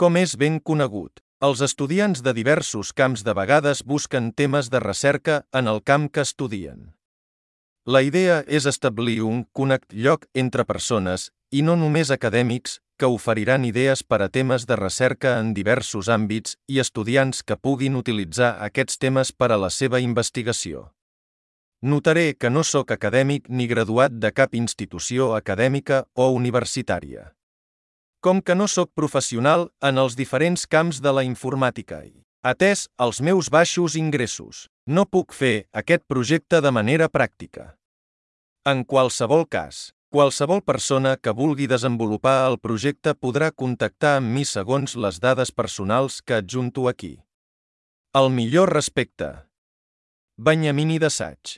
Com és ben conegut, els estudiants de diversos camps de vegades busquen temes de recerca en el camp que estudien. La idea és establir un lloc entre persones, i no només acadèmics, que oferiran idees per a temes de recerca en diversos àmbits i estudiants que puguin utilitzar aquests temes per a la seva investigació. Notaré que no sóc acadèmic ni graduat de cap institució acadèmica o universitària. Com que no sóc professional en els diferents camps de la informàtica i, atès els meus baixos ingressos, no puc fer aquest projecte de manera pràctica. En qualsevol cas, qualsevol persona que vulgui desenvolupar el projecte podrà contactar amb mi segons les dades personals que adjunto aquí. El millor respecte. Benyamini d'Assaig.